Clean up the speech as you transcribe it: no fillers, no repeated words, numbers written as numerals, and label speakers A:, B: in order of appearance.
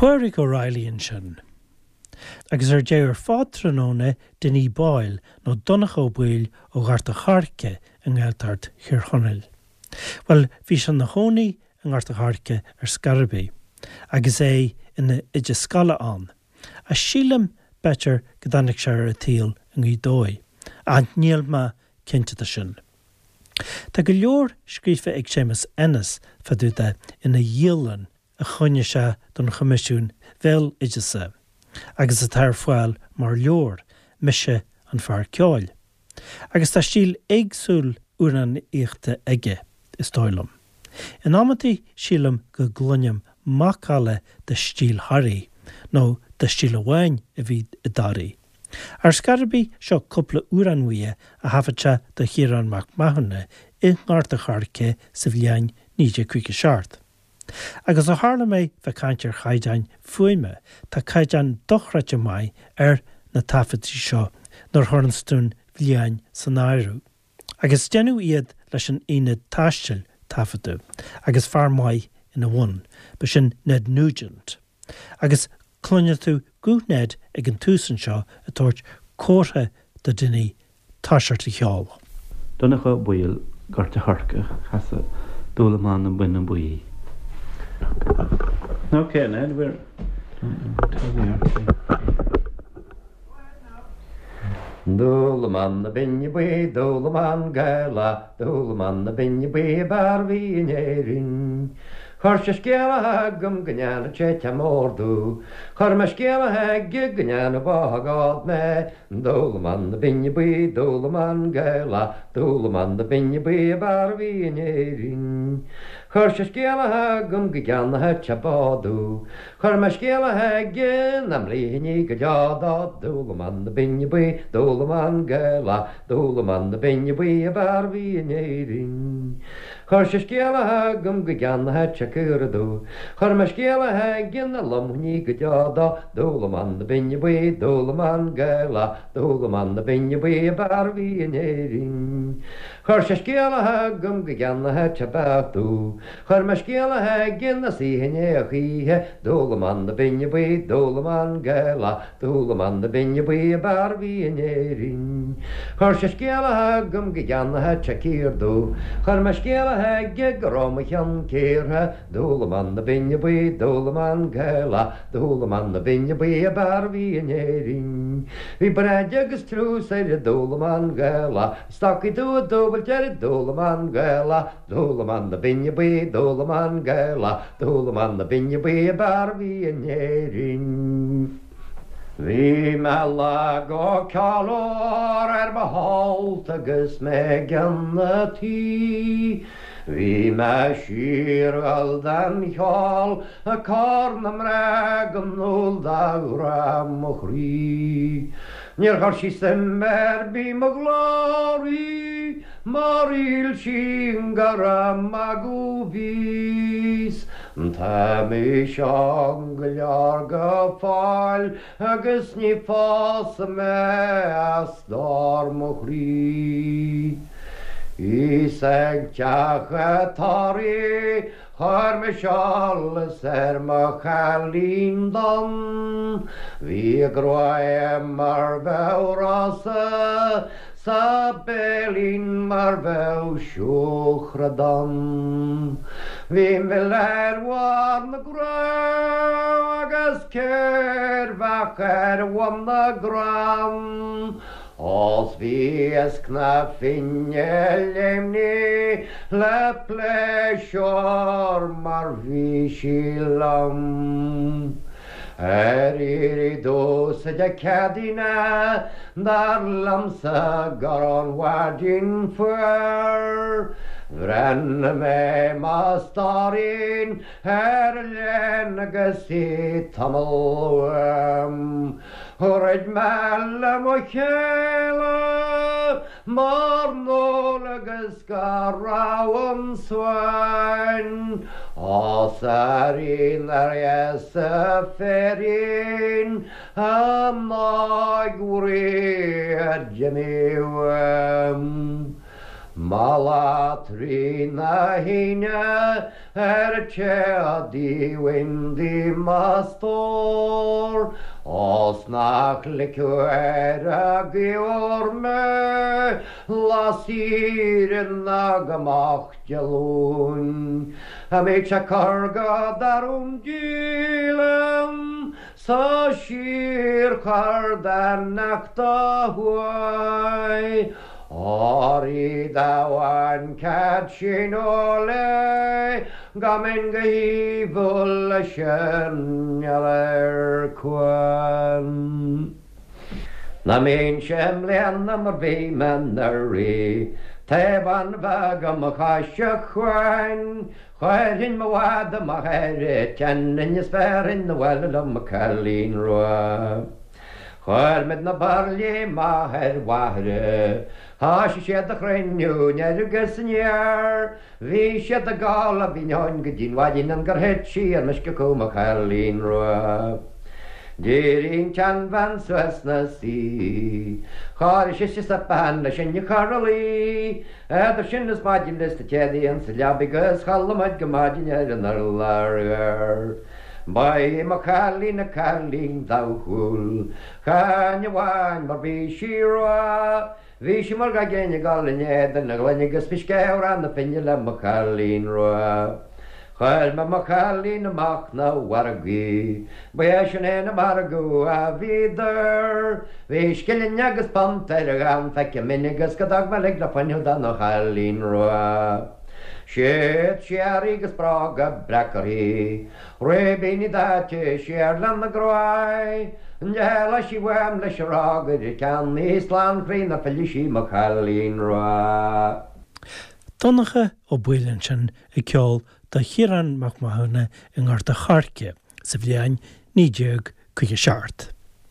A: Pádraig O'Reilly ansin. Agus ar deireadh ar fad tráthnóna, Dinny Boyle, nó Donncha Ó Baoill ó Ghort a' Choirce i nGaeltacht Thír Chonaill. Bhuel, bhí sé ina chónaí i nGort a' Choirce ar scor ar bith, agus é ina oide scoile ann. Ach sílim, b'fhéidir, go dtáinig sé ar an tsaol i nGaoth Dobhair, ach níl mé cinnte de sin. Tá go leor scríofa ag Séamus Ennis fá dtaobh de ina dhialann a choinnigh sé don Choimisiún Bhéaloideasa agus atá ar fáil mar leabhar, Mise an Fear Ceoil. Agus tá stíl éagsúil amhránaíochta aige, is dóigh liom. In amantaí sílim go gcluinim macalla de stíl Thoraí, nó de stíl amháin a bhí i dToraigh. Ar scor ar bith, seo cúpla amhrán uaidh a thaifead sé do Chiarán Mac Mathúna i nGort a' Choirce sa bhliain 1957. Agus ó tharla mé bheith ag caint ar chaighdeáin fuaime, tá caighdeán dochreidte maith ar na taifeadtaí seo nuair a chuireanns tú an bhliain san áireamh. Agus deineadh iad leis an aonad taistil, taifeadadh, agus fear maith ina bhun, b'shin Ned Nugent. Agus cluinfidh tú guth Ned ag an tús anseo ag tabhairt comhartha do Dinny toiseacht a cheol.
B: Donncha Ó Baoill, Gort a' Choirce, casadh Dúlamán na Binne Buí. Ok, Ned, we're.
C: Dúlamán na Binne Buí, Dúlamán Gaelach, Dúlamán na Binne Buí ab fhearr a bhí in Éirinn. Chuir sé scéala chugam go ndearna sé teach mór domh. Chuir mé scéala chuige go ndearna bághád mé. Dúlamán na Binne Buí, Dúlamán Gaelach, Dúlamán na Binne Buí ab fhearr a bhí in Éirinn. Chuir sé scéala chugam go gceannóchadh sé bád domh. Chuir mé scéala chuige nach mblífinn í go deo dó, Dúlamán na Binne Buí, Dúlamán Gaelach, Dúlamán na Binne Buí ab fhearr a bhí in Éirinn. Chuir sé scéala chugam go gceannóchadh sé caora domh. Chuir mé scéala chuige nach lomfainn í go deo dó, Dúlamán na Binne Buí, Dúlamán Gaelach, Dúlamán na Binne Buí ab fhearr a bhí in Éirinn. Chuir sé scéala chugam go gceannóchadh sé beach domh. Chuir mé scéala chuige nach suífinn é a choíche, Dúlamán na Binne Buí, Dúlamán Gaelach, Dúlamán na Binne Buí ab fhearr a bhí in Éirinn. Chuir sé scéala chugam go gceannóchadh sé cíor domh. Chuir mé scéala chuige go raibh mo cheann cíortha, Dúlamán na Binne Buí, Dúlamán Gaelach, Dúlamán na Binne Buí ab fhearr a bhí in Éirinn. Bhí breic agus triús ar an Dúlamán Gaelach, Stocaí dubha dúbailte ar an Dúlamán Gaelach, Dúlamán na Binne Buí, Dúlamán Gaelach, Dúlamán na Binne Buí ab fhearr a bhí in Éirinn. Bhí mé lá go ceol ar mo shult agus mé i gceann a' tí. Bhí mé siar dhul den cheol ag cur na mná go ndúil do ghrá mo chroí. Níor chuir sí suim ar bith mo ghlór í. Mar shíl sí gur ag magadh bhíos. Tá mise óg go leor go fóill agus ní phósfaidh mé a stór mo chroí. Bhíos ag teach a' tórraimh Chuir mise eolas ar mo chailín donn. Bhí a gruaig mar bheadh rosa 's a béilín mar bheadh siúcra donn. Bhí mil ar bharr na gcrann agus ceirbheach ar bhun na gcrann. Ós bhí iasc na Finne léimní le pléisiúr mar bhí sí liom. Ar iarraidh domhsa Dé Céadaoine dar liomsa gur ón mhaidin fuar. Bhreathnaigh mé mo stóirín ar an léan agus í tamall uaim. Throid mé le mo chéile mar ndul agus go raibh an suain Ós airín ar dheasa féirín an óig bhrí a d'imigh uaim. Mala trína thine ar an téadaí windy mo stór, Ós nach ligfeadh ar a gcaor mé lá saoire ná go moch Dé Luain. A mbeidh sé cur go darum díleann Sa síorchur dá neachta thuaidh, Óir dá bhain cead sin ó léigh, Go mbeinn go haoibhinn leis an ar cuan. Ná mbeinnse i mbliana mar bhí mé anuraidh, Taobh an bheag i mo chois a chuain, Chuirfinn mo mhada amach ar an tSionainn is bhéarfainn abhaile liom mo chailín rua. Chuir muid na bairillí amach ar Mhachaire, thoisigh siad a chruinniú anoir agus aniar. Bhí siad ag gabháil a bhinn ann go dtí'n mhaidin ann gur thit sí ar meisce acu mo chailín rua. D'éirigh an tseanbhean suas 'na suí, Chóirigh sise suipéan le sinn a chur a luí. Eadar sin is maidin bhí na téadaí insa leabaidh agus chodlaigh muid go maidin ar an urlár ghearr. Ba í mo chailín an cailín dathúil, chan amháin mar bhí sí rua, bhí sí mar gach éinne ag dul in éadan na gloine agus bhí sceabhrán na finne le mo chailín rua. Chuir mé mo chailín amach 'na mhargaidh, ba é sin é na margadh a bhíodar. Bhí scilling agus punt ar a dhán feicthe minn agus go dtug mé lig le fuinneamh do mo chailín rua. Siad siar í agus bróga breac uirthi, ribíní daite siar lena gráig. D'éalaigh sí uaim leis an rógaire ar a ceann í slán chroí nár phillfidh sí mo chailín rua.
A: Donncha Ó Baoill ansin ag ceol do Chiarán Mac Mathúna i nGort a' Choirce sa bhliain 1957.